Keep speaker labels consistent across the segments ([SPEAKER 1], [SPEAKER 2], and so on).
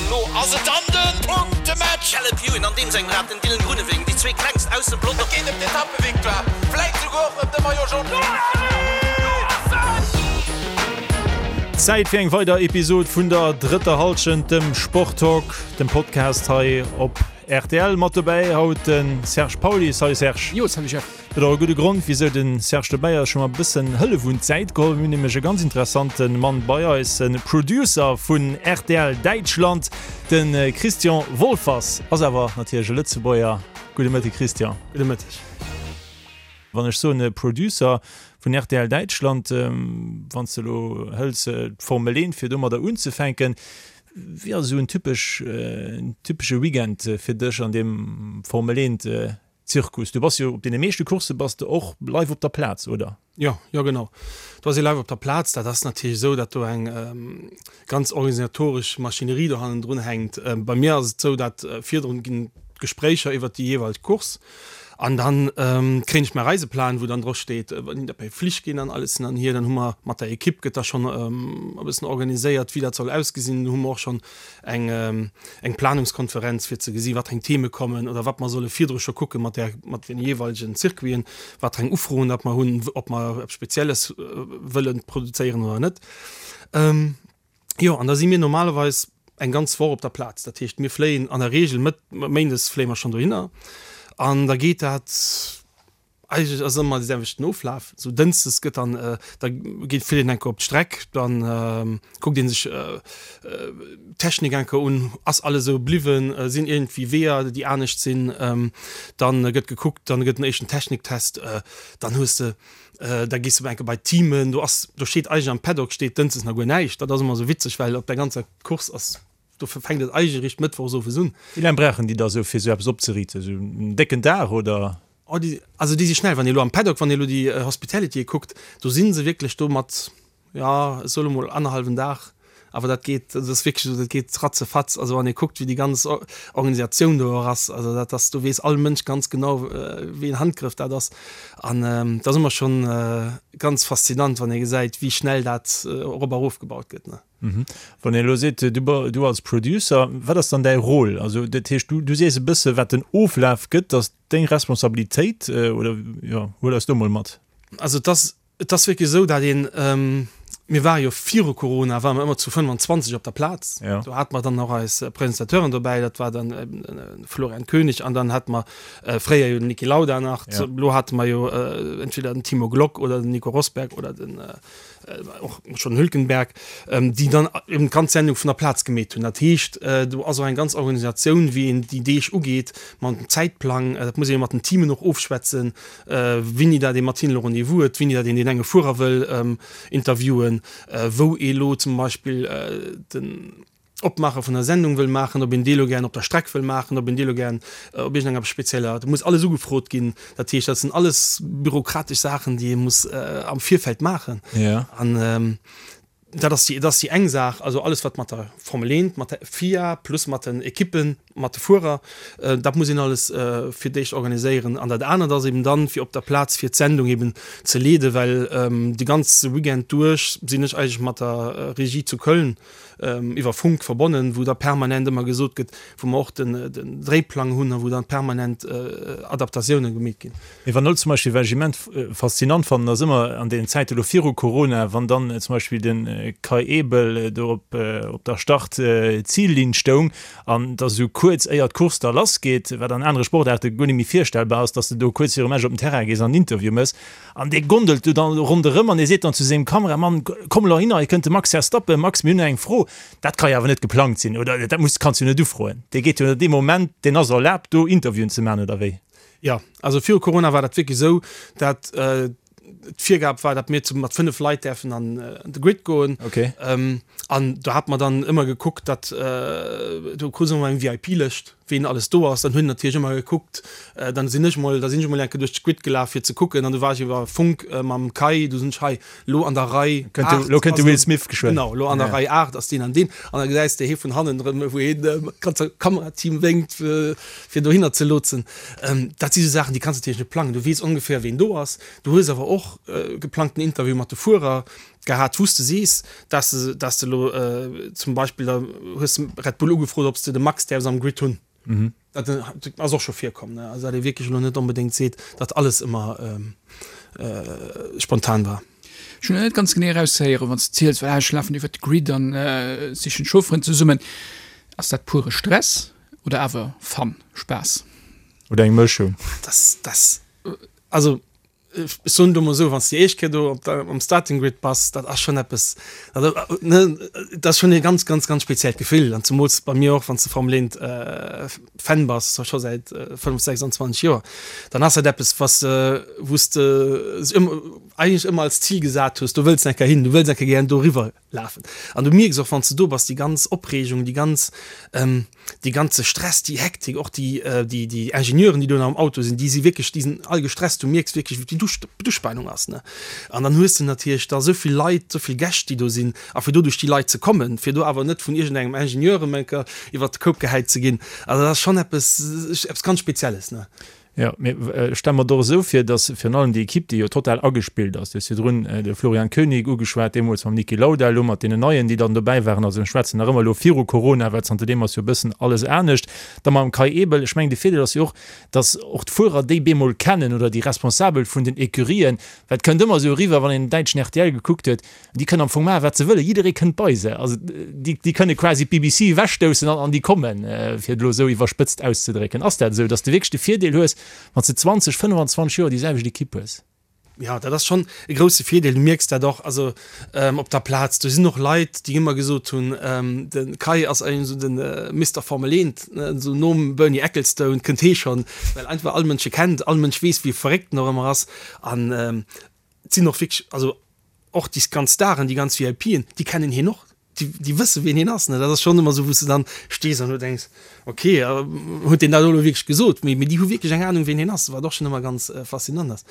[SPEAKER 1] An elo ass et dann de Punktematch!
[SPEAKER 2] Caleb Ewan an deem sengem Rad, den Dylan Groenewegen, déi zwee klengst aus dem Pelotong.
[SPEAKER 1] Et geet ëm d'Etappevictoire, vläit souguer och ëm de Maillot Jaune.
[SPEAKER 3] Zäit fir eng weider Episod vun der drëtter Hallschent, dem Sporttalk, dem Podcast hei op rtl. Mat dobäi haut de Serge Pauly. Salut Serge.
[SPEAKER 4] Jo, salut Jeff.
[SPEAKER 3] Huet och e gudde Grond, wisou de Serge dobäi ass. Ech hu mer e bëssen Hëllef un d'Säit geholl. Mir hunn nämlech e ganz interessante Mann bei eis, e Producer vun rtl Däitschland, de Christian Wolfers. Ass awer natierlech e Lëtzebuerger. Gudde Mëtteg, Christian.
[SPEAKER 4] Gudde Mëtteg.
[SPEAKER 3] Wann ech soen e Producer vun rtl Däitschland, wann s de elo hëls d'Formel 1, fir domadder unzefänken, wéi ass esou en typesch, en typesche Weekend fir dech an deem Formel 1 Zirkus, du bass jo op deene meeschte Coursse bass de och live op der Plaz, oder?
[SPEAKER 4] Jo, jo genau. Do ass ee live op der Plaz. Dat ass natierlech esou, datt do eng ganz organisatoresch Maschinerie do hannendrun hänkt. Bei mir ass et esou, datt virdrun ginn d'Gespréicher iwwert déi jeeweileg Course an dann kréien ech mäi Reiseplan, wou dann dro steet, wann dat bei Flich ginn an alles hin an hier. Dann hu mer mat der Ekipp gëtt da schonn e bëssen organiséiert, wéi dat soll ausgesinn. Do hu mer och schonn eng eng Planungskonferenz fir ze gesi wat eng Theme kommen oder wat mer solle virdru scho kucke mat där mat den jeeweilegen Circuiten, wat eng Ufroen dat mer hunn, ob mer eppes Spezielles wëlle produzéieren oder net. Jo, an da si mir normalerweis eng ganz Woch op der Plaz. Dat heescht, mir fléien an der Reegel Mëtt méindes fléie mer schonn dohinner an da geet dat, Eigentlech ass ëmmer de selwechten Oflaf. Sou dënschdes gëtt dann, da geet fiert een eng Kéier op d'Streck, dann kuckt ee sech d'Technik eng Kéier un, ass alles esou bliwwen, sinn iergendwéi Weeër déi anescht sinn. Dann gëtt gekuckt, dann gëtt en éischten Techniktest, dann hues de, da gees de eng Kéier bei d'Teamen, do ass, do steet eigentlech am Paddock steet dënschdes nach guer näischt. Dat ass ëmmer esou witzeg, well op der ganzer Course ass Dofir fänkt et eigentlech eréischt mëttwochs owes un.
[SPEAKER 3] Wéi laang brauchen déi da sou fir sou eppes opzeriiten? Sou en décken Dag oder?
[SPEAKER 4] Oh déi, also déi si schnell. Wann ee lo am Paddock, wann ee lo déi Hospitality'e kuckt, do si se wierklech do mat, jo ech soe lo mol annerhallwen Dag, awer dat geet, dat ass wierklech esou, dat geet ratzefatz. Also wann ee kuckt wéi déi ganz Organisatioun do och ass, also dat ass, do weess all Mënsch ganz genau wéi een Handgrëff dat ass. An dat ass ëmmer schonn ganz faszinant, wann ee gesäit wéi schnell dat erop a rofgebaut gëtt, ne.
[SPEAKER 3] Wann een elo seet, du als Producer, wat ass dann däi Rôle? Also dat heescht, du sees e bësse wat den Oflaf gëtt, ass deng Responsabilitéit oder jo, huel eis do mol mat.
[SPEAKER 4] Also et ass, et ass wierklech esou, datt een, mir ware jo viru Corona ware mer ëmmer zu 25 op der Plaz, do hate mer dann och eis Presentateuren dobäi, dat war dann de Florian König an dann hate mer fréier jo den Niki Lauda nach, elo hate mer jo entweder den Timo Glock oder den Nico Rosberg oder den och schon Hülkenberg, déi dann eben d'ganz Sendung vun der Plaz gemeet hunn. Dat heescht, do ass och eng ganz Organisatioun, wéi een déi Deeg ugeet, mam Zäitplang. Dat muss ee jo mat den Teamen och ofschwätzen, wéini dat ee mat hinnen elo Rendez-vous huet, wéini dat een deen enge Fuerer wëll interviewen, wou ee lo zum Beispill den. Opmaache vun der Sendung wëll maachen, ob een dee lo gären op der Streck wëll maachen, ob een dee lo gären op iergendenger spezieller, do muss alles ugefrot ginn. Dat heescht, dat sinn alles bürokratesch Saachen, déi ee muss am Virfeld maachen. An dat ass déi, dat ass déi eng Saach, also alles wat mat der Formel 1, mat der FIA plus mat den Ekippen, mat de Fuerer, dat muss een alles fir d'éischt organiséieren. An dat anert ass eben dann, fir op der Plaz fir d'Sendung eben ze leeden, well de ganze Weekend duerch sinn ech eigentlech mat der Regie zu Köln iwwer Funk verbonnen, wou da permanent ëmmer gesot gëtt, wou mer och den Dréiplang hunn a wou dann permanent Adaptatioune gemeet ginn.
[SPEAKER 3] Mee wann elo zum Beispill, wat ech immens faszinant fannen, ass ëmmer an deenen Zäite elo viru Corona, wann dann zum Beispill de Kai Ebel do op op der Start-Zil-Linn stoung an da sou kuerz éier d'Course da lassgeet, wat an anere Sportaarte guer net méi virstellbar ass, datt s de do kuerz virum Match op den Terrain gees an en Interview méchs, An dee gondelt du dann ronderëm an dee seet dann zu sengem Kameramann, Komm elo hinner, hei kënnt de Max Verstappen. Max, mir hunn eng Fro. Dat ka jo awer net geplangt sinn, oder? Dat muss, kanns du jo net ufroen. Dee geet jo dee Moment, deen ass erlaabt, do Interviewen ze maachen, oder wéi?
[SPEAKER 4] Jo, also viru Corona war dat wierklech esou, dat d'Virgab war, dat mir zu mat 5 Leit däerfen an de Grid goen.
[SPEAKER 3] Okay.
[SPEAKER 4] An do hat mer dann ëmmer gekuckt, dat do krut se ëmmer eng VIP-Lëscht. ween alles do ass, dann hunn natierlech ëmmer gekuckt, dann sinn ech mol, da sinn ech mol eng Kéier duerch d'Grid gelaf fir ze kucken an du war ech iwwer Funk mam Kai, du sinn ech hei lo an der Rei 8,
[SPEAKER 3] lo kënnt de Will Smith geschwënn,
[SPEAKER 4] genau, lo an der Rei 8 ass deen an deen an da gesäis de hee vun hannen erëm wou heen dem ganze Kamerateam wénkt fir dohinner ze lotsen. Dat si sou Saachen déi kanns de natierlech net plangen, du weess ongeféier ween do ass, du hues awer och geplangten Interview mat de Fuerer. Gehat, wou s de sees, dass de, dass de elo zum Beispill, da hues de Red Bull ugefrot, ob s de de Max däerfs am Grid hunn. Dat ass och scho virkomm, ne? Also datt ee wierklech elo net onbedéngt seet, datt alles ëmmer spontan war.
[SPEAKER 5] Ech hunn net ganz genee erauszehéieren, wann s de ziels, well ech lafen iwwert de Grid an sichen d'Chaufferen zesummen. Ass dat pure Stress oder awer Fun, Spaass?
[SPEAKER 3] Oder eng Mëschung?
[SPEAKER 4] Das, das, also Ech soen et emol esou, wann s de déi éischt Kéier do op der, am Starting Grid bass, dat ass schonn eppes, also ne, dat ass schonn e ganz, ganz, ganz speziellt Gefill. An zemools bei mir och, wann s de Formel 1 Fan bass, scho säit 5, 26 Joer, dann ass dat eppes, was de, wou s de ëmmer, eigentlech ëmmer als Zil gesat hues, do wëlls de eng Kéier hin, du wëlls eng Kéier gären doriwwer. Lafen. An du mierks och, wann s de do bass, déi ganz Opreegung, déi ganz, dee ganze Stress, déi Hektik, och déi, déi, déi Ingenieuren, déi do nach am Auto sinn, déi si wierklech, déi sinn all gestresst. Du mierks wierklech, wéi d'Uspanung ass, ne? An dann hues de natierlech da esou vill Leit, esou vill Gäscht, déi do sinn. A fir do duerch déi Leit ze kommen, fir do awer net vun iergendengem Ingenieur erëm eng Kéier iwwert de Koup gehäit ze ginn, also dat ass schonn eppes, eppes ganz Spezielles, ne?
[SPEAKER 3] Jo, mee ech stelle mer et och esou vir, datt virun allem déi Ekipp, déi jo total agespillt ass, du hues virdrun de Florian Koenig ugeschwat, deemools mam Niki Lauda, elo mat deenen Neien, déi dann dobäi waren, also ech schwätzen nach ëmmer elo viru Corona, well zanterdeem ass jo e bëssen alles anescht, da mam Kai Ebel, ech mengen de Virdeel ass jo och, datt och d'Fuerer déi bemol kennen oder déi Responsabel vun den Ecurien, well et kënnt ëmmer esou eriwwer, wann een den däitschen rtl gekuckt huet, Déi kënnen am Fong maachen, wat se wëllen. Jidderee kënnt bei se. Also déi, déi kënne quasi d'BBC ewechstoussen an, an déi kommen, fir et elo esou iwwerspëtzt auszedrécken. Ass dat esou, datt s de wierklech de Virdeel hues, wann s de 20, 25 Joer déi selwecht Ekipp hues?
[SPEAKER 4] Jo, dat ass schonn e grousse Virdeel. Du mierks dat och also op der Plaz. Do sinn och Leit, déi ëmmer gesot hunn, de Kai ass eigentlech esou de Mister Formel Eent, esou nom Bernie Ecclestone kënnt hee schonn, well einfach all Mënsch e kennt, all Mënsch weess, wéi verréckt en och ëmmer ass. An et sinn och wierklech, also Och déi ganz Staren, déi ganz VIPen, déi kennen hien och, déi, déi wësse wien hien ass. Ne, dat ass schonn ëmmer esou, wou s de dann stees an du denks, ok, huet deen dat elo wierklech gesot? Mee, mee déi hu wierklech eng Anung, wien hien ass, wat och schonn ëmmer ganz faszinant ass.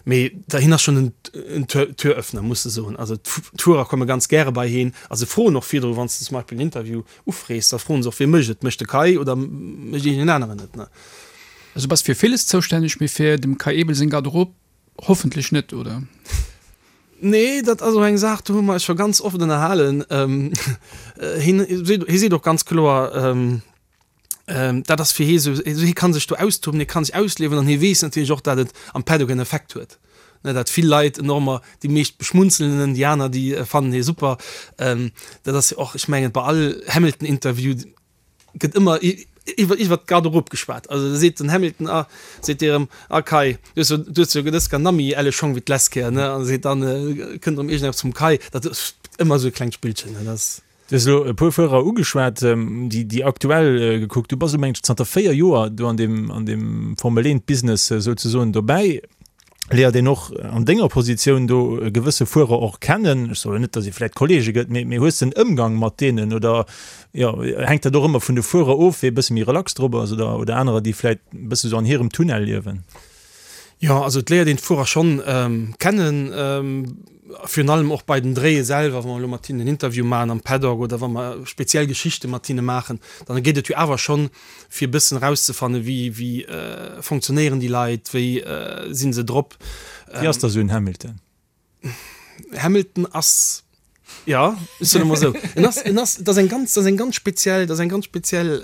[SPEAKER 4] Mee da, hien ass schonn en, en Tür, Türöffner, muss de soen. Also d'Fuerer komme ganz gäre bei hien a se froen och virdru, wann s de zum Beispill en Interview ufrees, da froen se och, wie mécht et, mécht de Kai oder mécht iergendeen aneren et, ne?
[SPEAKER 5] Also bass fir villes zoustänneg, mee fir dem Kai Ebel seng Garderobe Hoffentlech net, oder?
[SPEAKER 4] Nee, dat ass och eng Saach, do hu mer eis scho ganz oft ënnerhalen. Hien hie seet och ganz kloer, dat ass fir hie sou, hie ka sech do austoben, hie ka sech ausliewen an hie weess natierlech och, dat et am Paddock en Effekt huet, ne, dat vill Leit en och ëmmer, déi meescht beschmunzelen en, déi aner, déi fannen hie super. Dat ass jo och, ech mengen, bei all Hamilton-Interview, gëtt ëmmer iwwer iwwer d'Garderobe geschwat. Also da seet den Hamilton, ah, seet dee erëm, ah Kai, du hues jo, du hues jo dës Kéier nammi elle Schong wéi d'lescht Kéier, ne? An seet dann, kënnt erëm iergendepps vum Kai. Dat ass ëmmer esou e klengt Spillchen, ne? Dat ass.
[SPEAKER 3] Du hues elo e puer Fuerer ugeschwat, déi, déi aktuell gekuckt. Du bass elo, mengen ech, zanter 4 Joer do an deem, an deem Formel-Eent-Business souzesoen dobäi. Léiert een och an denger Positioun do gewësse Fuerer och kennen? Ech soen net, datt ee vläicht Kollege gëtt, mee mee hues de en Ëmgang mat deenen oder jo hänkt dat och ëmmer vun de Fuerer of, wee e bësse méi relax drop ass oder oder anerer, déi vläicht e bësse sou an hirem Tunnel liewen?
[SPEAKER 4] Jo, also et léiert een d'Fuerer schonn kennen, virun allem och bei den Dréie selwer, wa mer elo mat hinnen en Interview maachen am Paddock oder wa mer speziell Geschichte mat hinne maachen, dann geet et jo awer schonn fir e bëssen erauszefannen, wéi, wéi fonctionnéieren déi Leit, wéi si se drop.
[SPEAKER 3] Wéi ass da sou en Hamilton?
[SPEAKER 4] Hamilton ass, jo, ech soen emol esou, en ass, en ass, dat ass eng ganz, dat ass eng ganz speziell, dat ass eng ganz speziell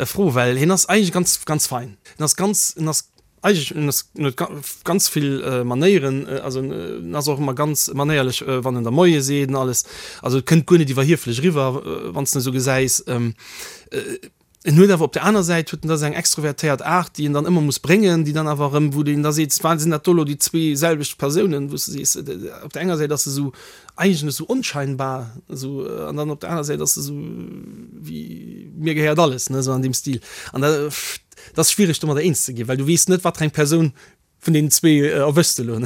[SPEAKER 4] Fro, well hien ass eigentlech ganz, ganz fein. En ass ganz, en ass Eigentlech, en ass, en huet ganz vill Manéieren, also en ass och ëmmer ganz manéierlech, wann en der Moie seet an alles. Also et kënnt guer net iwwerhieflech eriwwer, wann s de en esou gesäis. En huet awer op der aner Säit huet en da seng extrovertéiert Aart, déi en dann ëmmer muss bréngen, déi dann awer erëm, wou een da seet, sinn dat do elo déi zwee selwecht Persounen, wou s de sees, op der enger Säit ass e sou eigentlech esou onscheinbar, esou, an dann op der aner Säit ass e sou wéi mir gehéiert alles, ne, esou an deem Stil. An da. Et ass schwiereg domadder eens ze ginn, well du weess net wat fir eng Persoun vun deenen zwee erwëschs de elo.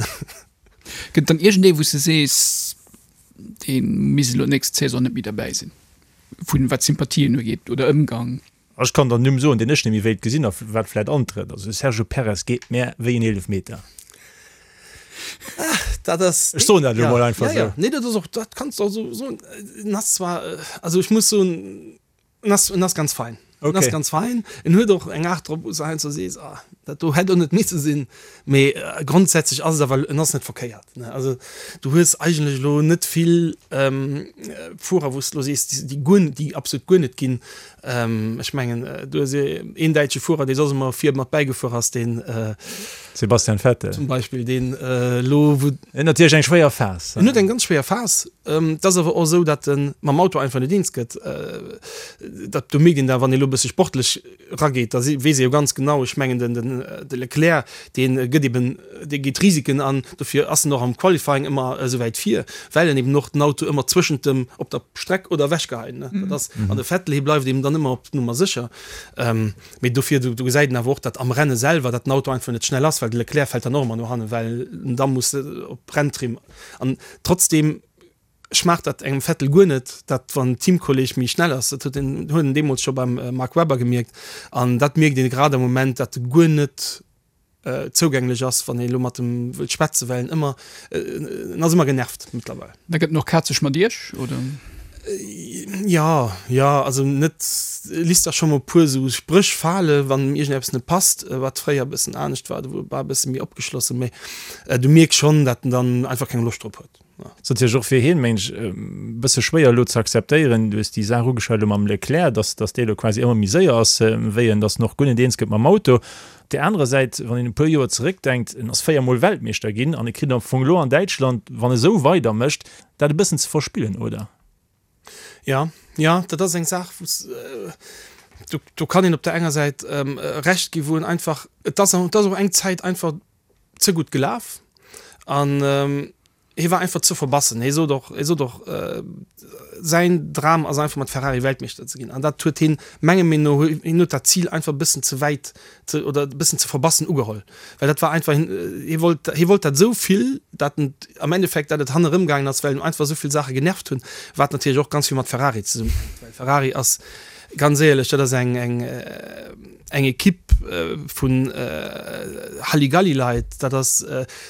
[SPEAKER 5] Gëtt et dann iergendee wou s de sees, dee misst elo d'nächst Saison net méi derbäi sinn, vun wat Sympathien ugeet oder Ëmgang?
[SPEAKER 3] Ech kann der en Numm soen, deen ech net méi wéilt gesinn a wat vläit antrëtt. Also de Sergio Perez geet mär wéi en Eelefmeter.
[SPEAKER 4] Dat ass.
[SPEAKER 3] Ech soen dat elo mol einfach
[SPEAKER 4] esou. Nee, dat ass och, dat kanns de och esou soen. En ass zwar, also ech muss soen, En ass, en ass ganz fein. Okay. En ass ganz fein. En huet och eng Aart drop, wou s de heiansdo sees, ah. Dat do hätt och net misse sinn, mee grondsätzlech ass et awer, en ass net verkéiert, ne. Also du hues eigentlech elo net vill Fuerer, wou s de elo sees, déi guer, déi absolut guer net ginn. Ech mengen, du hues een däitsche Fuerer, dee soss ëmmer vir mat bäigefuer ass, deen.
[SPEAKER 3] Sebastian Vettel.
[SPEAKER 4] Zum Beispill, deen elo wou.
[SPEAKER 3] En huet natierlech eng schwéier Phas.
[SPEAKER 4] En huet eng ganz schwéier Phas. Et ass awer och esou, datt e mam Auto einfach net eens gëtt. Dat, do mierkt een da, wann ee elo e bësse sportlech rageet, da weess ee jo ganz genau, ech mengen den, den, de Leclerc, dee gëtt eben, dee geet Risiken an, dofir ass en och am Qualifying ëmmer esou wäit vir, well en eben och den Auto ëmmer zwëschent dem, op der Streck oder ewechgeheien, ne. Dat ass, an de Vettel, hie bleift eben dann ëmmer op Nummer sécher. Mee dofir, do, do gesäit een awer och, datt am Renne selwer, datt den Auto einfach net schnell ass, well de Leclerc fält dann och ëmmer no hannen, well en da muss op Renntrim an trotzdem, Schmaacht dat engem Vettel guer net, dat wann en Teamkolleg méi schnell ass. Dat huet een huet en deemools scho beim Mark Webber gemierkt an dat mierkt een grad am Moment, dat e guer net zougänglech ass, wann ee lo mat em wëllt schwätzen, well en ëmmer, en ass ëmmer genervt mëttlerweil.
[SPEAKER 5] Da gëtt en och kazeg mat iech, oder?
[SPEAKER 4] Jo, jo, also net, e lisst da scho mol e puer esou Spréch fale wann em iergendeppes net passt, wat fréier e bëssen anescht war, do war e bësse méi opgeschlossen, mee du mierks schonn, dat en dann einfach keng Loscht drop huet.
[SPEAKER 3] Ass natierlech och fir hien, mengen ech, e bësse schwéier elo ze akzeptéieren. Du hues déi Saach ugeschwat elo mam Leclerc, dass, dass dee elo quasi ëmmer méi séier ass wéi en, dass en och guer net eens gëtt mam Auto. Op där anerer Säit, wann een e puer Joer zeréckdenkt, en ass véiermol Weltmeeschter ginn an e kritt am Fong elo an Däitschland, wann e sou weidermécht, dat e bëssen ze verspillen, oder?
[SPEAKER 4] Jo, jo, dat ass eng Saach, wou s, do, do kann een op der enger Säit Recht gi wou en einfach, et ass, et ass och eng Zäit einfach ze gutt gelaf an hie war einfach ze verbassen. Hie sot och, hie sot och, säin Dram ass einfach mat Ferrari Weltmeeschter ze ginn an dat huet hien menge Meenung no, hien huet dat Zil einfach e bëssen ze wäit ze oder e bëssen ze verbassen ugeholl, well dat war einfach, hien, hie wollt, hie wollt dat esou vill, dat en am Endeffekt, dat et hannerëm gaangen ass, well en einfach esou vill Saache genervt hunn, wat natierlech och ganz vill mat Ferrari zesummenhänkt, well Ferrari ass ganz éierlech, dat ass eng, eng. Eng Equipe vun Halligalli-Leit, dat ass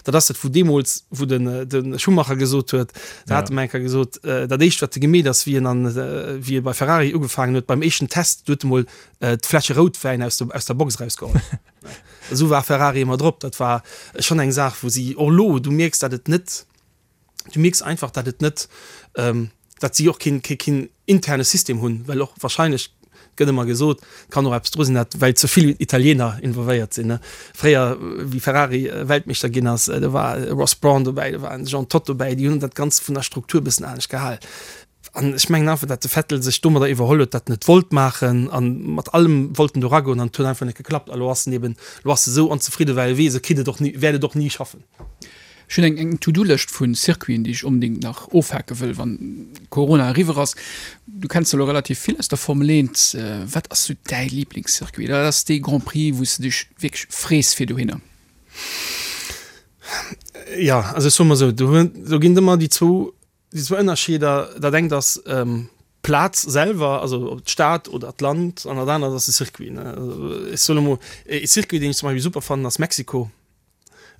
[SPEAKER 4] dat ass dat wou deemools, wou den de Schumacher gesot huet, da hat en eng Kéier gesot, dat éischt wat e gemeet ass, wéi en an wéi e bei Ferrari ugefaangen huet, beim éischten Test, do huet e mol d'Fläsche Routwäin aus der aus der Box erausgeholl. Esou war Ferrari ëmmer drop. Dat war schonn eng Saach wou si och elo, du mierks dat et net, du mierks einfach dat et net, dat si och keen, keen, keen interne System hunn, well och wahrscheinlech gëtt ëmmer gesot, kann och eppes dru sinn, dat well ze vill Italiener involvéiert sinn. Fréier wéi Ferrari Weltmeeschter ginn ass, do war e Ross Brawn dobäi, do war en Jean Todt dobäi, déi hunn dat Ganzt vun der Struktur e bëssen anescht gehal. An ech mengen einfach, dat de Vettel sech domadder iwwerholl huet, dat en et wollt maachen an mat allem wollt en do eragoen an et huet einfach net geklappt. A lo ass en eben, lo ass e sou onzefridde well e weess, e kritt et och ni, wäert et och ni schaffen.
[SPEAKER 5] Ech hunn eng eng To-Do-Lëscht vu Circuiten, déi ech onbedéngt nach ofhake wëll, wann Corona eriwwer ass. Du kenns elo relativ vill aus der Formel 1. Wat ass sou däi Liblingscircuit? Wat ass dee Grand Prix, wou s de dech wierklech frees fir dohinner?
[SPEAKER 4] Jo, also ech soe mol esou, do hunn, do ginn et ëmmer déi zwou, déi zwou Ënnerscheeder. Dat engt ass d'Plaz selwer, also d'Stad oder d'Land, an dat anert ass de Circuit, ne. Also ech soen emol, e Circuit, deen ech zum Beispill super fannen, ass Mexiko.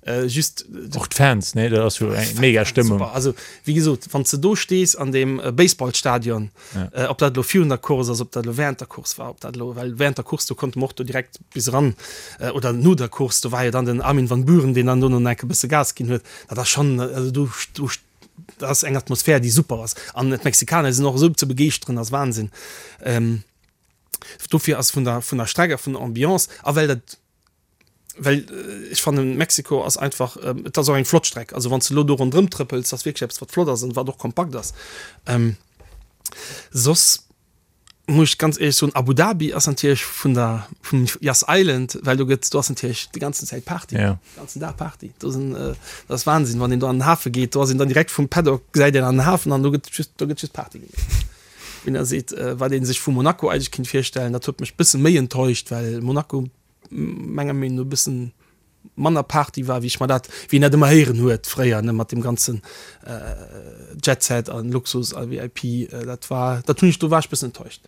[SPEAKER 4] Äh, just
[SPEAKER 3] och d'Fans ne dat ass jo eng mega Stëmmung.
[SPEAKER 4] Super. Also wéi gesot, wann s de do stees an deem äh, Baseballstadion, ja. äh, ob dat lo virun der Course ass, ob dat lo während der Course war, ob dat lo well während der Course do konnte mer och do direkt bis eran äh, oder no der Course, do war jo dann den Armin van Buuren, deen dann do no enke bësse Gas ginn huet. Dat ass schon also du, du dat ass eng Atmosphär, déi super ass. An d'Mexikaner sinn och esou ze begeeschteren, ass Wahnsinn. Ähm, dofir ass vun der vun der Streck a vun der Ambiance a well dat Well ech fannen Mexiko ass einfach, et ass och eng flott Streck, also wann s de elo do ronderëm trëppels, ass wierklech eppes wat flott ass an wat och kompakt ass. Soss muss ech ganz éierlech soen, Abu Dhabi ass natierlech vun der vum Yas Island, well do gëtt do ass natierlech déi ganzen Zäit Party, de ganzen Dag Party. Do sinn, dat ass Wahnsinn, wann een do an den Hafe geet, do ass een dann direkt vum Paddock gesäit een an den Hafen an do gëtt just do gëtt just Party gemaach. Wien da seet, wat ee sech vu Monaco eigentlech kinnt virstellen, dat huet mech bësse méi enttäuscht, well Monaco menger Meenung no e bëssen manner Party war, wéi ech mer dat, wéi een dat ëmmer héieren huet fréier, ne, mat deem ganzen Jet Set an Luxus a VIP, dat war, dat hunn ech, do war ech bëssen enttäuscht.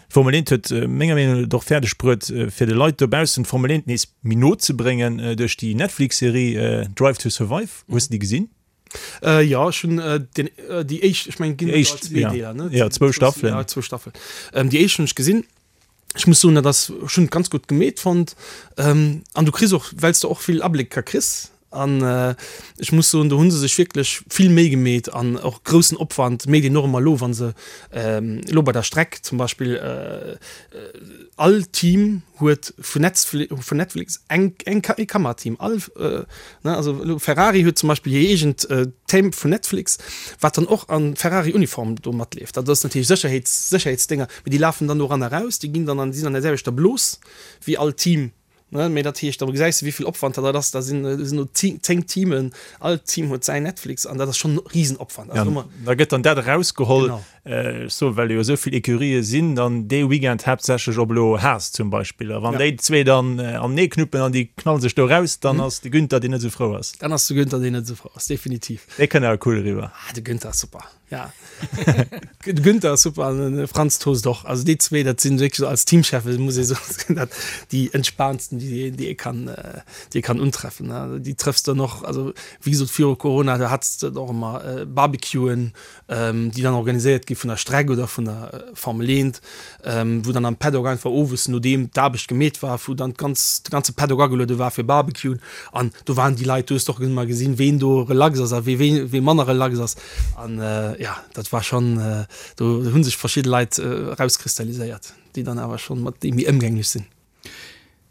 [SPEAKER 3] D'Formel 1 huet menger Meenung no et och fäerdeg bruet, fir de Leit dobaussen d'Formel 1 nees méi no ze bréngen duerch déi Netflix-Serie Drive to Survive. Hues de déi gesinn?
[SPEAKER 4] Äh, jo, ech hunn äh, den, äh, déi éischt, ech mengen, et ginn
[SPEAKER 3] Déi éischt,
[SPEAKER 4] zwee
[SPEAKER 3] ja.
[SPEAKER 4] Deeler, ne?
[SPEAKER 3] Ja, zwou Staffelen.
[SPEAKER 4] Ja, zwou Staffelen. Ähm, déi éischt hunn ech gesinn. Ech muss soen, dat ass, ech hunn et ganz gutt gemeet fonnt. An du kriss och, well s de och vill Ablécker kriss. An ech muss soen, do hu se sech wierklech vill Méi gemeet an och groussen Opwand méit een och ëmmer elo, wa se elo bei der Streck zum Beispill all Team huet vun Netflix eng ee Kamerateam. All, ne, also elo Ferrari huet zum Beispill hir eegent Team vun Netflix, wat dann och an Ferrari-Uniform do matleeft. Dat ass natierlech Sécherheets, Sécherheetsdénger, mee déi lafen dann do eran a raus, déi ginn dann an, déi sinn an der selwechter Blos wéi all Team. Ne, mee dat heescht, da gesäis de wéi vill Opwand dat ass. Da sinn do 10 Teamen, all Team huet säin Netflix an dat ass schonn e Risenopwand.
[SPEAKER 3] Also ja, da gëtt dann dat erausgeholl, genau. Ech soen, well jo esou vill Ecurië sinn, dann dee Weekend haaptsächlech op elo Haas zum Beispill. A wann ja. déi zwee dann anenee knuppen an déi knallen sech do raus, dann mhm. ass de Günther, deen net esou frou ass.
[SPEAKER 4] Dann ass de Günther, deen net esou frou ass, definitiv.
[SPEAKER 3] Dee kënnt awer cool eriwwer.
[SPEAKER 4] Ah, de Günther ass super. Ja. De Günther ass super an den Franz Tost och. Also déi zwee, dat sinn wierklech als Teamchefe muss ee soen, dat déi entspaantsten, déi déi ee kann déi ee kann untreffen. Déi trëffs de dann och, also wéi gesot viru Corona, do hats de och ëmmer Barbecuen, déi dann organiséiert gi vun der Streck oder vun der Formel 1, wou dann am Paddock einfach owes, nodeem d'Aarbecht gemeet war, wou dann d'ganz de ganze Paddock ageluede war fir Barbecuen an do waren déi Leit, du hues och ëmmer gesinn, ween do relax ass a wee wee manner relax ass. An jo, dat war schonn, do hu sech verschidde Leit erauskristalliséiert, déi dann awer schonn mat deem méi ëmgänglech sinn.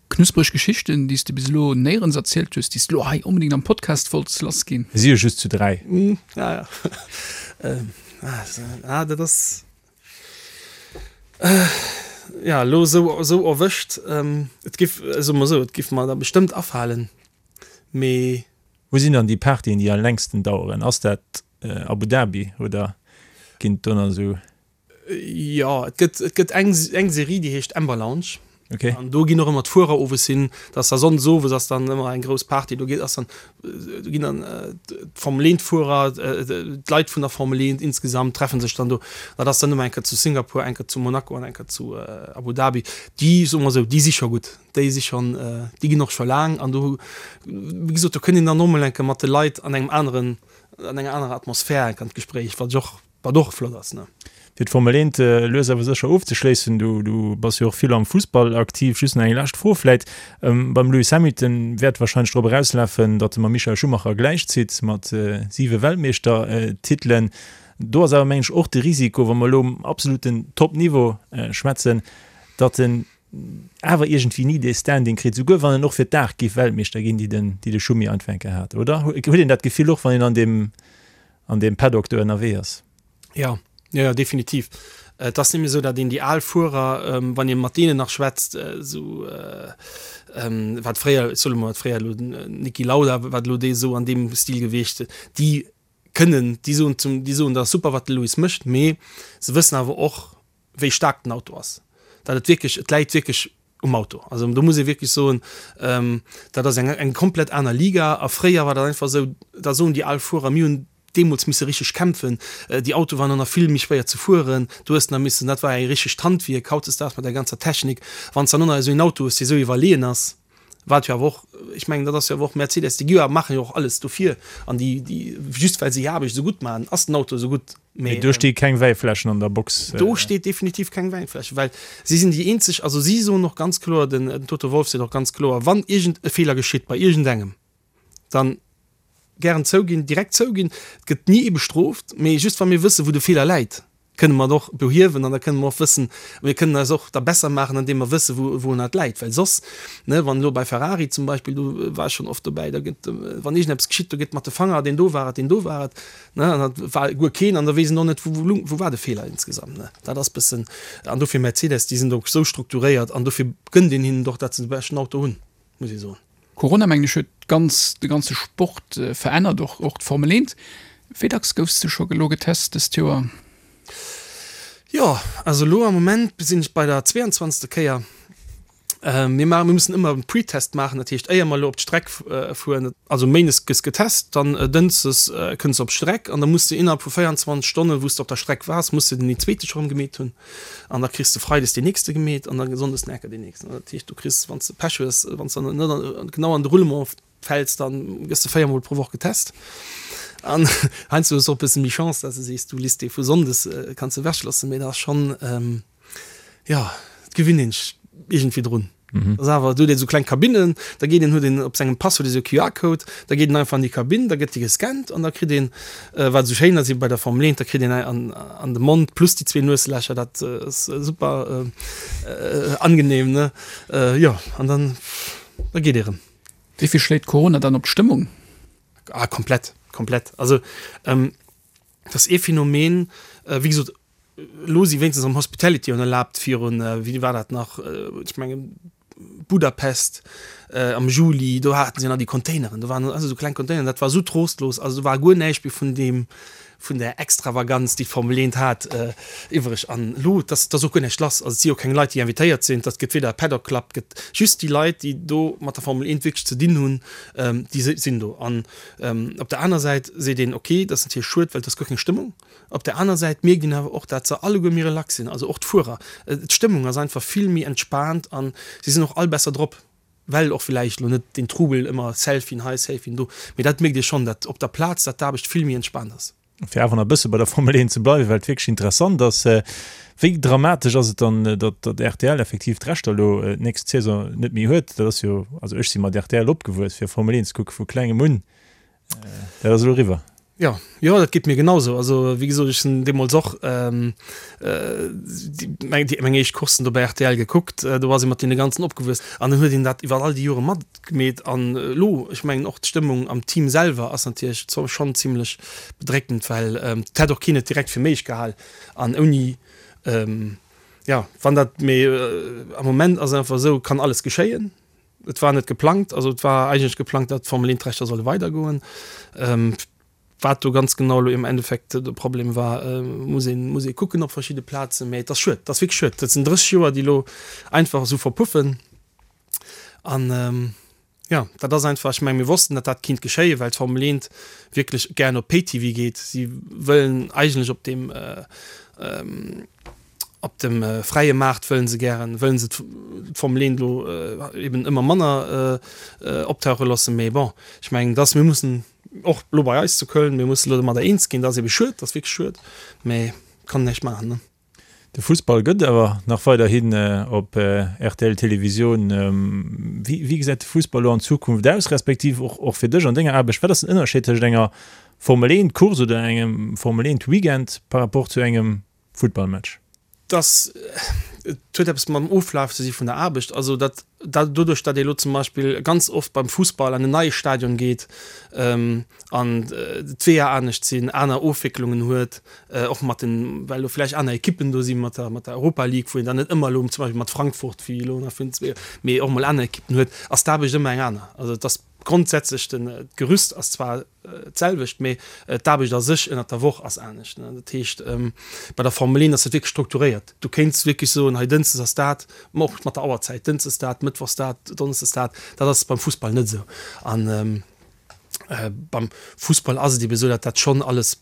[SPEAKER 5] Knuspreg Geschichten, déi s de bis elo néierens erzielt hues, déi s de elo hei onbedéngt am Podcast wollts lassginn?
[SPEAKER 3] Mir si jo just zu 3.
[SPEAKER 4] Ja, ja. Ah, dat ass, ja, elo esou, esou erwëscht. Et giff, soe mer esou, et giff mer der bestëmmt afalen, mee.
[SPEAKER 3] Wou sinn dann déi Partyen, déi am längsten daueren? Ass dat Abu Dhabi oder ginn et do nach esou?
[SPEAKER 4] Jo, et gëtt, et gëtt eng, eng Serie, déi heescht Amber Lounge.
[SPEAKER 3] Okay.
[SPEAKER 4] An do ginn och ëmmer d'Fuerer owes hin. Dat ass da sonndes owes ass dann ëmmer eng grouss Party. Do geet, ass dann, do ginn dann d'Formel 1 Fuerer, d'Leit vun der Formel 1 insgesamt treffen sech dann do. Dat ass dann ëmmer eng Kéier zu Singapur, eng Kéier zu Monaco an eng Kéier zu Abu Dhabi. Déi, soe mer esou, déi si scho gutt. Déi si schonn, déi ginn och scho laang an do, wéi gesot, do kënnt een dann och mol eng Kéier mat de Leit an engem aneren, an enger anerer Atmosphär eng Kéier an d'Gespréich, wat ech och, wat och flott ass, ne.
[SPEAKER 3] Fir d'Formel 1 lues awer sécher ofzeschléissen, du, du bass jo och vill am Fussball aktiv, just nach eng lescht Fro vläit, Beim Lewis Hamilton wäert warscheinlech drop erauslafen, datt e mam Michael Schumacher gläichzitt mat siwe Weltmeeschtertitelen. Do ass awer, mengen ech, och de Risiko, wa mer elo um absoluten Top-Niveau schwätzen, datt en awer iergendwéi ni dee Standing kritt, souguer wann en och fir d'Aart géif Weltmeeschter ginn, déi den, déi de Schumi einfach eng Kéier hat, oder? Huet een dat Gefill och, wann een an deem, an deem Paddock do ënnerwee ass?
[SPEAKER 4] Jo, jo, jo, definitiv. Et ass nämlech esou, datt een déi al Fuerer, wann ee mat deenen nach schwätzt, esou wat fréier, ech soe lo mol, wat fréier elo den Niki Lauda, wat elo dee esou an deem Stil gewiescht, déi kënnen, déi soen zum, déi soen, dat ass super, wat de Lewis mécht, mee se wëssen awer och, wéi staark den Auto ass, dat et wierklech, et läit wierklech um Auto. Also do muss ee wierklech soen, dat ass eng eng komplett aner Liga a fréier war dat einfach esou, da soen déi al Fuerer, mir hunn deemools misse richteg kämpfen, déi Autoe waren och nach vill méi schwéier ze fueren, du hues nach missen, dat war e richtegt Handwierk. Hautdesdaags mat der ganzer Technik, wann s de dann och nach esou een Auto hues, dee esou iwwerleeën ass, Wat jo awer och, ech mengen, dat ass jo awer och Mercedes, déi gi jo, maachen jo och alles dofir an déi, déi, just well se hir Aarbecht esou gutt maachen, ass den Auto esou gutt.
[SPEAKER 3] Mee do sti keng Wäifläschen an der Box.
[SPEAKER 4] Do steet definitiv keng Wäifläschen, well si sinn déi eenzeg, also si soen och ganz kloer, den Toto Wolff seet och ganz kloer, wann iergend e Feeler geschitt bei iergendengem, dann gären zouginn, direkt zouginn, et gëtt ni ee bestrooft, mee just wa mir wëssen, wou de Feeler läit, kënne mer et och behiewen an da kënne mer och wëssen, mir kënnen eis och da besser maachen, andeem mer wëssen, wou wourun et läit. Well soss, ne, wann elo bei Ferrari zum Beispill, do war ech schonn oft dobäi, da gëtt, wann iergendeppes geschitt, do gëtt mat de Fanger, deen do war et, deen do war et, ne, an dat war guer keen an da weess een och net, wou wou wou war de Feeler insgesamt, ne. Dat ass bëssen, an dofir Mercedes, déi sinn do esou strukturéiert an dofir gënnt een hinnen et och, datt se de beschten Auto hunn, muss ee soen.
[SPEAKER 5] Corona mengen ech huet ganz de ganze Sport verännert, och och d'Formel 1. Wéi dacks goufs de scho elo getest dëst Joer?
[SPEAKER 4] Jo, also elo am Moment sinn ech bei der 22. Kéier. Mir maachen, mir mussen ëmmer e Pretest maachen, dat heescht éier mer elo op d'Streck fueren, also méindes gëss getest, dann dënschdes kënns de op d'Streck an da muss de innerhalb vu 24 Stonnen, wou s de op der Streck waars, muss de den zweete scho rëm gemeet hunn. An da kriss de freides deen nächste gemeet an da sonndes den Ecker deen nächsten. Dat heescht, du kriss, wann s de Pech hues, wann s de net genau an de Roulement fäls, dann gëss de véiermol pro Woch getest. An heiansdo hues de och e bësse méi Chance, dass de sees, du liss dee vu sonndes, kanns de ewechloossen. Mee dat ass schonn, jo, et. gewinnt een sech iergendwéi drun. Dat ass awer, do huet een esou kleng Kabinnen, da geet een, huet een op sengem Pass huet ee sou e QR-Code, da geet een einfach an déi Kabinn, da gëtt déi gescannt an da kritt een, wat esou schéin ass bei der Formel 1, da kritt een an an de Mond plus déi zwee Nueslächer, dat ass super angenehm, ne? Jo, an dann, da geet ee rëm.
[SPEAKER 5] Wéi vill schléit Corona dann op d'Stëmmung?
[SPEAKER 4] Ah, komplett, komplett. Also, dat ass ee Phänomen, wéi gesot, Elo si wéinstens am Hospitality un erlaabt virun, wéi war dat nach, ech mengen Budapest am Juli, do haten se nach déi Containeren, do waren also esou kleng Containeren, dat war esou trostlos, also do war guer näischt méi vun deem, vun där Extravaganz, déi d'Formel 1 hat, iwwreg. An elo, et ass, et ass och guer näischt lass, also et si jo keng Leit, déi invitéiert sinn, et gëtt weder e Paddock Club, et gëtt just déi Leit, déi do mat der Formel 1 wierklech ze dinn hunn, déi sinn do. An op der aner Säit seet een, okay, dat ass natierlech schued, well et ass guer keng Stëmmung. Op der aner Säit mierkt een awer och, dat se alleguer méi relax sinn, also och d'Fuerer. D'Stëmmung ass einfach vill méi entspaant an si sinn och all besser drop, well och villäicht elo net deen Trubel ëmmer Selfien hei, Selfien do, mee dat mierkt ee schonn, dat op der Plaz, dat d'Aarbecht vill méi entspaant ass.
[SPEAKER 3] Fir awer nach e bësse bei der Formel 1 ze bleiwen, well et wierklech interessant ass, Wéi dramatesch ass et dann, datt datt rtl effektiv d'Rechter elo d'nächst Saison net méi huet? Dat ass jo, also ech si mat rtl opgewuess, fir Formel 1 ze kucke vu klengem un. Dat ass elo eriwwer.
[SPEAKER 4] Jo, jo, dat geet mir genausou. Also wéi gesot, ech sinn deemools och meng déi meng éischt Courssen do bei rtl gekuckt. Do ass ee mat deene ganzen opgewuess an dann huet een dat iwwer all déi Jore matgemeet. An elo, ech mengen och d'Stëmmung am Team selwer ass natierlech schonn zimlech bedréckend, well et hätt och keen et direkt fir méiglech gehal an ouni, jo, wann dat, mee am Moment ass et einfach esou, kann alles geschéien. Et war net geplangt, also et war eigentlech geplangt, datt d'Formel 1 d'Rechter solle weidergoen. Wat do ganz genau elo im Endeffekt de Problem war, muss een, muss ee kucken op verschidde Plazen. Mä et ass schued, et ass wierklech schued. Dat sinn 30 Joer, déi elo einfach esou verpuffen. An jo, dat ass einfach, ech menge mir wossten, datt dat kinnt geschéien, well d'Formel 1 wierklech gären op Pay-TV geet. Si wëllen eigentlech op deem, Op dem fräie Maart wëllen se gären, wëllen se d'Formel 1 elo eben ëmmer manner optauche loossen. Mee bon, ech mengen, dass mir mussen och elo bei eis zu Köln, mir mussen elo domadder eens ginn. Dat ass ebe schued, dat ass wierklech schued, mee kann näischt maachen, ne.
[SPEAKER 3] De Fussball gëtt awer nach weiderhin op rtl Televisioun. Wéi gesäit de Fussball elo an Zukunft aus, respektiv och fir dech an denger Aarbecht? Wat ass den Ënnerscheed tëscht enger Formel 1 Course oder engem Formel 1 Weekend par rapport zu engem Futtballmatch?
[SPEAKER 4] Dass et huet eppes mam Oflaf ze si vun der Aarbecht. Also dat doduerch, datt ee lo zum Beispill ganz oft beim Fussball an en neie Stadion geet an d'Weeër anescht sinn, aner Ofwécklungen huet, och mat den, well lo vläicht aner Ekippen do si mat der mat der Europa League, wou een dann net ëmmer elo zum Beispill mat Frankfurt wéi elo nach vun mee och mol aner Ekippen huet, ass d'Aarbecht ëmmer eng aner. Also et ass grondsätzlech den d'Gerüst ass zwar d'selwecht, mee d'Aarbecht a sech ënnert der Woch ass anescht. Dat heescht, bei der Formel 1 ass dat wierklech strukturéiert. Du kéints wierklech soen, hei dënschdes ass dat, ma och mat der Auerzäit, dënschdes dat, mëttwochs dat, donneschdes dat. Dat ass beim Fussball net esou. An beim Fussball ass et ebe esou, datt dat schonn alles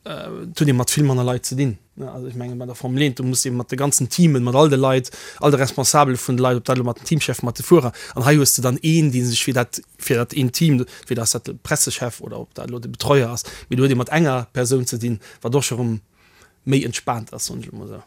[SPEAKER 4] Et huet ee mat vill manner Leit ze dinn. Also ech menge bei der Formel 1, do muss ee mat de ganzen Teamen, mat all de Leit, all de Responsabele vun de Leit, ob dat elo mat den Teamcheffen, mat de Fuerer, an hei hues de dann een, dee sech fir dat, fir dat eent Team, entweder ass dat de Pressechef oder ob dat elo de Betreuer ass, mee do huet ee mat enger Persoun ze dinn, wat och scho rëm méi entspaant ass, soen ech elo mol esou.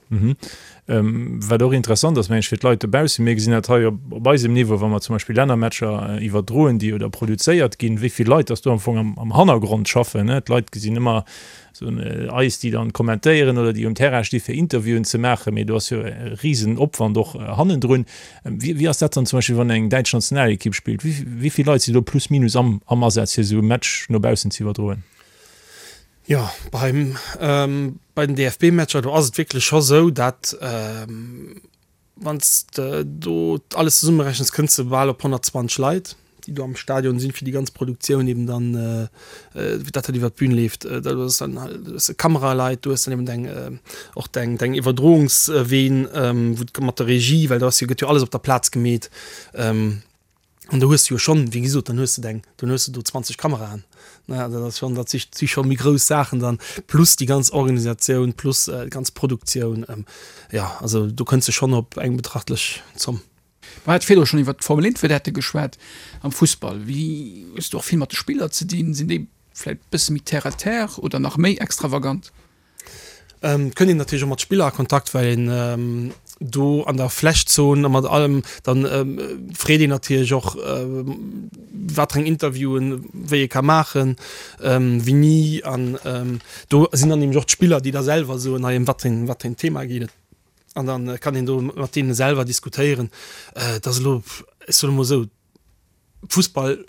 [SPEAKER 3] Wat och interessant ass, meng ech, fir d'Leit dobaussen, mir gesinn dat hei op eisem Niveau, wa mer zum Beispill Lännermatcher iwwerdroen, déi oder produzéiert ginn, wéi vill Leit dass do am Fong am Hannergrond schaffen. D'Leit gesinn ëmmer esou eis, déi dann kommentéieren oder déi um Terrain sti fir Interviewen ze maachen, mee do ass jo e Risenopwand och hannendrun. Wéi ass dat dann zum Beispill, wann eng däitsch Nationalekipp spillt? Wéi vill Leit sinn do plus minus am Asaz, fir esou e Match no baussen ze iwwerdroen?
[SPEAKER 4] Jo, beim, bei den DFB-Matcher, do ass et wierklech scho sou, dat wann s de do alles zesummerechens, kënns de bal op 120 Leit, déi do am Stadion sinn, fir déi ganz Produktioun eben dann, dat dat iwwer d'Bün leeft. Dat ass dann halt, du hues Kameraleit, du hues dann eben deng, och deng, deng Iwwerdroungsween, wou d' mat der Regie, well do ass jo, gëtt jo alles op der Plaz gemeet. An do hues de jo schonn, wéi gesot, dann hues de deng, dann hues de do 20 Kameraen, ne, dat ass schonn, dat si si scho méi grouss Saachen dann, plus déi ganz Organisatioun, plus déi ganz Produktioun, jo, also do kënns de schonn op eng betrachtlech Zomm.
[SPEAKER 5] Mer hate virdru schonn iwwert d'Formel 1 Vedette geschwat. Am Fussball, wéi hues de och vill mat de Spiller ze dinn? Sinn déi vläicht e bësse méi terre à terre oder nach méi extravagant?
[SPEAKER 4] Et kënnt een natierlech och mat Spiller a Kontakt, well een. Do an der Flächzon a mat allem, dann freet een natierlech och, wat fir eng Interviewen wéi ee ka maachen, wéini. An do sinn dann nämlech och d'Spiller, déi da selwer soen, hei ëm wat fir wat fir en Thema geet et. An da kann een do mat deene selwer diskutéieren. Et ass elo, ech soen emol esou, Fussball,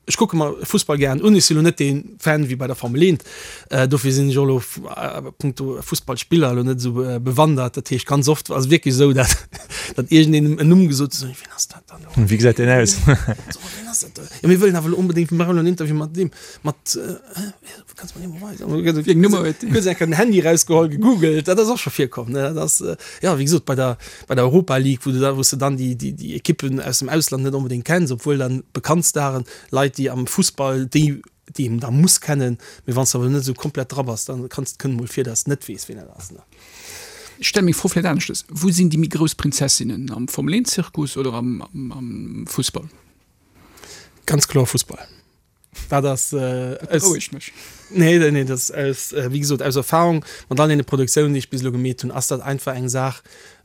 [SPEAKER 4] ech kucke mer Fussball gären un, ech sinn elo net dee Fan wéi bei der Formel 1, dofir sinn ech och elo a punkto Fussballspiller elo net esou bewandert. Dat heescht ganz oft ass et wierklech esou, dat datt iergendeen en Numm gesot huet, wien ass dat dann elo?
[SPEAKER 3] Wéi gesäit deen aus?
[SPEAKER 4] So, wien ass dat do? Jo, mir wëllen awer elo onbedéngt, mir maachen elo en Interview mat deem, mat, Kanns mer dee mol weisen? Wéi eng Nummer huet deen? Huet enker den Handy rausgeholl, gegoogelt, dat ass och scho virkomm, ne? Dat ass, jo, wéi gesot, bei der, bei der Europa League, wou du da, wou s de dann déi, déi, déi Ekippen aus dem Ausland net onbedéngt kenns, obwuel dann bekannt Staren, Leit, déi am Fussball, déi, déi een da muss kennen, mee wann s de awer net esou komplett dra bass, dann kanns, kënnt mol vir, dass s net weess, wien dat ass, ne?
[SPEAKER 5] Ech stelle meng Fro vläicht aneschtes, Wou sinn déi méi grouss Prinzessinnen, am Formel-Eent-Zirkus oder am, am, am Fussball?
[SPEAKER 4] Ganz kloer Fussball. Dat ass
[SPEAKER 5] Dat berouegt mech.
[SPEAKER 4] Nee, nee, dat ass aus, wéi gesot, aus Erfahrung mat all deene Produktiounen, déi ech bis elo gemeet hunn, ass dat einfach eng Saach,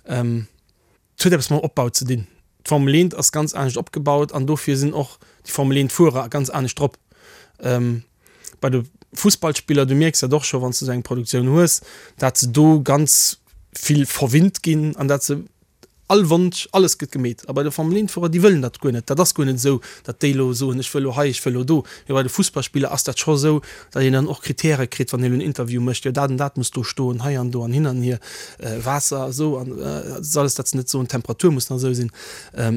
[SPEAKER 4] et huet eppes mam Opbau ze dinn. D'Formel 1 ass ganz anescht opgebaut an dofir sinn och déi Formel 1 Fuerer ganz anescht drop. Bei de Fussballspiller, du mierks dat och scho wann s du esou eng Produktioun hues, dat se do ganz vill verwinnt ginn an dat se All Wonsch, alles gëtt gemeet. A bei de Formel-Eent-Fuerer, déi wëllen dat guer net. Dat ass guer net esou, datt déi elo soen, ech wëll elo hei, ech wëll elo do. Mee bei de Fussballspiller ass dat scho esou, datt een dann och Kritäre kritt, wann een elo en Interview mécht, jo dat an dat muss do stoen, hei an do an hin an hier, Waasser esou an dat ass alles, datt se net soen, d'Temperatur muss nach esou sinn.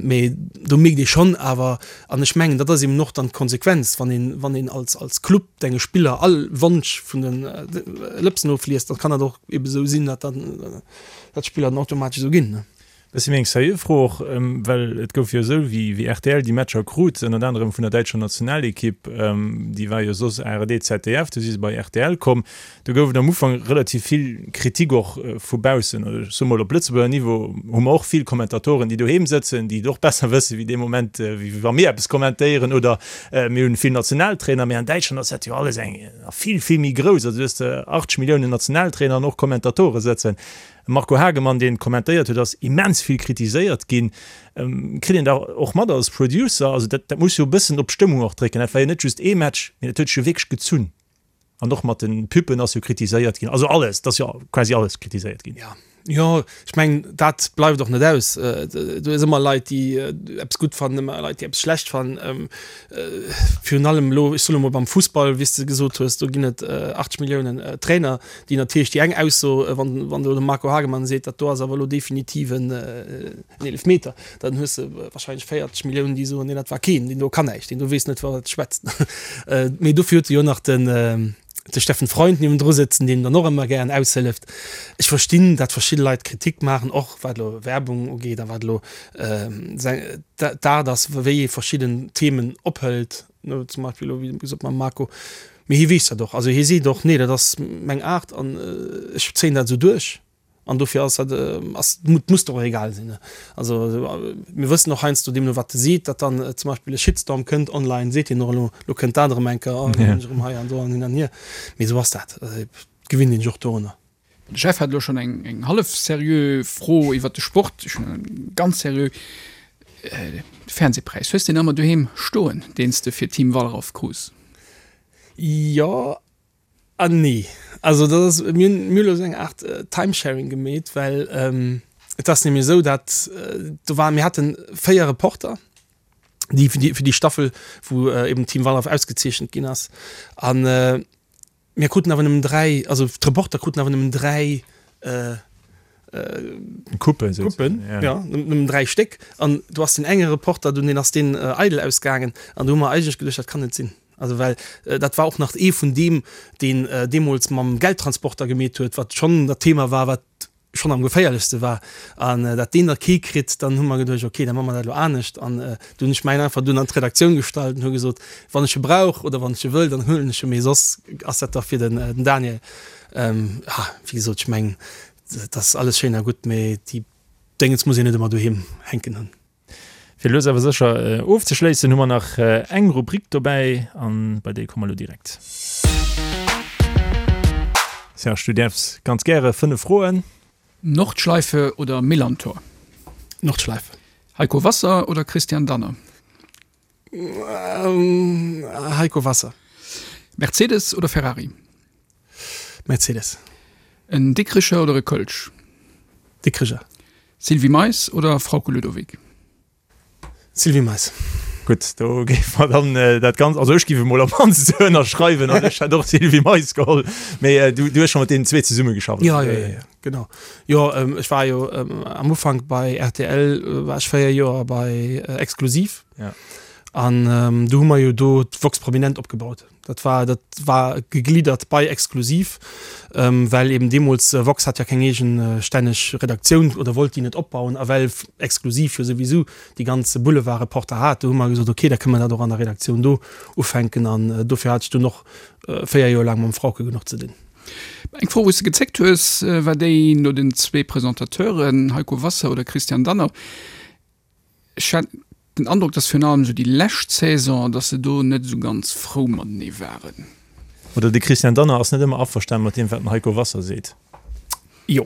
[SPEAKER 4] Mee do mierkt ee schonn awer, an ech mengen, dat ass eben och dann d'Konsequenz, wann een, wann een als, als Club denge Spiller all Wonsch vun de Lëpsen ofliest, da kann dat och eben esou sinn, datt dann, dat d'Spiller dann automatesch esou ginn.
[SPEAKER 3] Bëssi méi eng seriö Fro och, well et gouf jo esou, wéi rtl déi Matcher krut, ënnert anerem vun der däitscher Nationalekipp, déi war jo soss ARD, ZDF, du si se bei rtl komm, do gouf et am Ufank relativ vill Kritik och vu baussen. Oder ech soe mol, op Lëtzebuerger Niveau hu mer och vill Kommentatoren, déi doheem sëtzen, déi et och besser wësse wéi dee Moment, wéi wa mir eppes kommentéieren, oder mir hunn vill Nationaltrainer, mee an Däitschland ass dat jo alles eng vill, vill méi grouss. Also du hues 80 Milliounen Nationaltrainer an och Kommentatore sëtzen. Marco Hagemann, deen kommentéiert huet, ass immens vill kritiséiert ginn. Kritt een da och mat als Producer? Also dat, dat muss jo e bëssen op d'Stëmmung och drécken. Dat war jo net just ee Match, mee dat huet sech jo wierklech gezunn. An och mat de Püppen ass jo kritiséiert ginn. Also alles, et ass jo quasi alles kritiséiert ginn.
[SPEAKER 4] Ja, jo, ech mengen, dat bleift och net aus. Do ass ëmmer Leit, déi eppes gutt fannen, ëmmer Leit, déi eppes schlecht fannen. Virun allem elo, ech soen emol beim Fussball, wéi s de gesot hues, do ginn et 80 Milliounen Trainer, déi natierlech déi eng Ausso, wann wann elo de Marco Hagemann seet, dat do ass awer elo definitiv en Eelefmeter, dann hues de wahrscheinlech 40 Milliounen, déi soen, nee dat war keen, deen do kann näischt, deen do weess net wat e schwätzt. Mee dofir huet e jo nach den de Steffen Freund niewendru sëtzen, deen dann och ëmmer gären aushëlleft. Ech verstinn, dat verschidde Leit Kritik maachen, och wat elo Werbung ugeet a wat elo d'Aart ass, wéi ee verschidden Themen ophëlt. No, zum Beispill elo wéi gesot mam Marco, mee hie weess dat och. Also hie seet och, nee dat ass meng Aart an ech zéien dat esou duerch an dofir ass dat, ass, muss der och egal sinn. Also mir wëssen och heiansdo deemno wat e seet, datt dann zum Beispill e Shitstorm kënnt online, seet hien och elo, elo kënnt dat erëm eng Kéier, oh elo hunn ech erëm hei an do an hin an hier. Mee esou ass dat, et gewinnt een sech och dorunner.
[SPEAKER 5] De Jeff hat elo schonn eng eng hallef seriö Fro iwwert de Sport. Ech hunn eng ganz seriö. De Fernsehpräis, hues de deen ëmmer doheem stoen, deen s de fir Team Wallraff krus?
[SPEAKER 4] Jo an nee. Also dat ass, mir hunn mir hunn elo esou eng Aart Timesharing gemeet, well et ass nämlech esou, dat do waren, mir haten 4 Reporter, déi fir déi fir déi Staffel, wou eben Team Wallraff ausgezeechent ginn ass an, Mir kruten awer nëmmen 3, also d'Reporter kruten awer nëmmen 3
[SPEAKER 3] Coupen,
[SPEAKER 4] Coupen, ja, nëmmen 3 Stéck. An do ass deen enge Reporter dunn, deen ass deen eidel ausgaangen. An do hu mer eigentlech geduecht, dat kann net sinn. Also well dat war och nach ee vun deem, deen deemools mam Geldtransporter gemeet huet, wat schonn dat Thema war, wat schonn am geféierlechste war an dat deen da kee kritt, dann hu mer geduecht, okay, da maache mer dat elo anescht. An du hunn ech mäin einfach dunn an d'Redaktioun gestallt an hu gesot, wann ech e brauch oder wann ech e wëll, dann huelen ech e, mee soss ass dat da fir den Daniel. Ja, wéi gesot, ech mengen, dat ass alles schéin a gutt, mee déi Déngens muss een net ëmmer doheem hänken hunn.
[SPEAKER 3] Fir lues awer sécher ofzeschléissen, hu mer nach eng Rubrik dobäi an bei déi komme mer elo direkt. Serge, du däerfs ganz gäre 5 Froen.
[SPEAKER 5] Nordschleife oder Millerntor?
[SPEAKER 4] Nordschleife.
[SPEAKER 5] Heiko Wasser oder Christian Danner?
[SPEAKER 4] Heiko Wasser.
[SPEAKER 5] Mercedes oder Ferrari?
[SPEAKER 4] Mercedes.
[SPEAKER 5] En Dikricher oder e Kölsch?
[SPEAKER 4] Dikricher.
[SPEAKER 5] Sylvie Mais oder Frauke Ludowig?
[SPEAKER 4] Sylvie Mais.
[SPEAKER 3] Gutt, do géife mer dann dat Ganzt, also ech géif emol op mannst esou ënnerschreiwen an ech hätt och Sylvie Mais geholl. Mee du hues scho mat deenen zwee zesummegeschafft?
[SPEAKER 4] Jo, jo, jo, genau. Jo, ech war jo am Ufank bei rtl, war ech 4 Joer bei Exklusiv. An do hu mer jo do d'Vox Prominent opgebaut. Dat war, dat war gegliddert bei Exklusiv, well eben deemools Vox hat ja keng eegestänneg Redaktioun oder wollt déi net opbauen a well Exklusiv jo souwisou déi ganz Boulevardreporter hat, do hu mer gesot, okay, da kënne mer dat och an der Redaktioun do ufänken an dofir hat ech dunn och 4 Joer laang mam Frauke genuch ze dinn.
[SPEAKER 5] Eng Fro, wou s de gezéckt hues, war déi no den zwee Presentateuren, Heiko Wasser oder Christian Danner. Ech hat den Androck, dass virun allem esou déi lescht Saison, dass se do net esou ganz frou matenee waren.
[SPEAKER 3] Oder de Christian Danner ass net ëmmer averstanen mat deem, wat den Heiko Wasser seet.
[SPEAKER 4] Jo,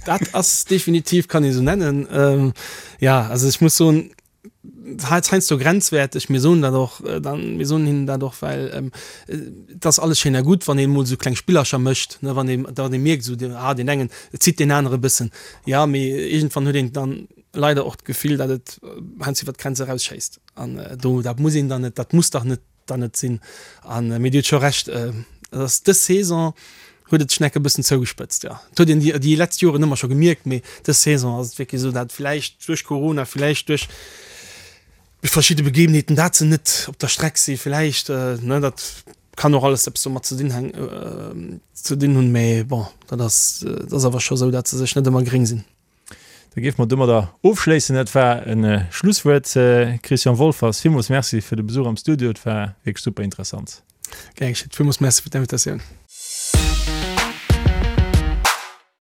[SPEAKER 4] dat ass definitiv, kann ee sou nennen. Jo, also ech muss soen, heiansdo grenzwäerteg. Mir soen dat och dann, mir soen hinnen dat och, well et ass alles schéin a gutt, wann een emol esou kleng Spillercher mécht, ne, wann een, wann ee mierkt esou, ah deen engen zitt deen anere e bëssen. Jo, mee iergendwann huet een dann leider och d'Gefill, datt et heiansdo iwwer d'Grenz erausschéisst. An do, dat muss een dann net, dat muss dach net dann net sinn. An, mee Dir hutt scho Recht, et ass dës Saison huet et sech nach e bëssen zougespëtzt, jo. Et huet een déi, déi letzt Joren ëmmer scho gemierkt, mee dës Saison ass et wierklech esou, dat vläicht duerch Corona, vläicht duerch verschidde Begebenheeten, dat se net op der Streck si vläicht, ne, dat kann och alles eppes domat ze dinn hänk, ze dinn hunn, mee bon, dat ass, dat ass awer scho esou, dat se sech net ëmmer gréng sinn.
[SPEAKER 3] Da géife mer domadder ofschléissen. Dat war e Schlusswuert. Christian Wolffers, villmools Merci fir de Besuch am Studio. Et war wierklech super interessant.
[SPEAKER 4] Gär geschétt. Villmools Merci fir d'Invitatioun.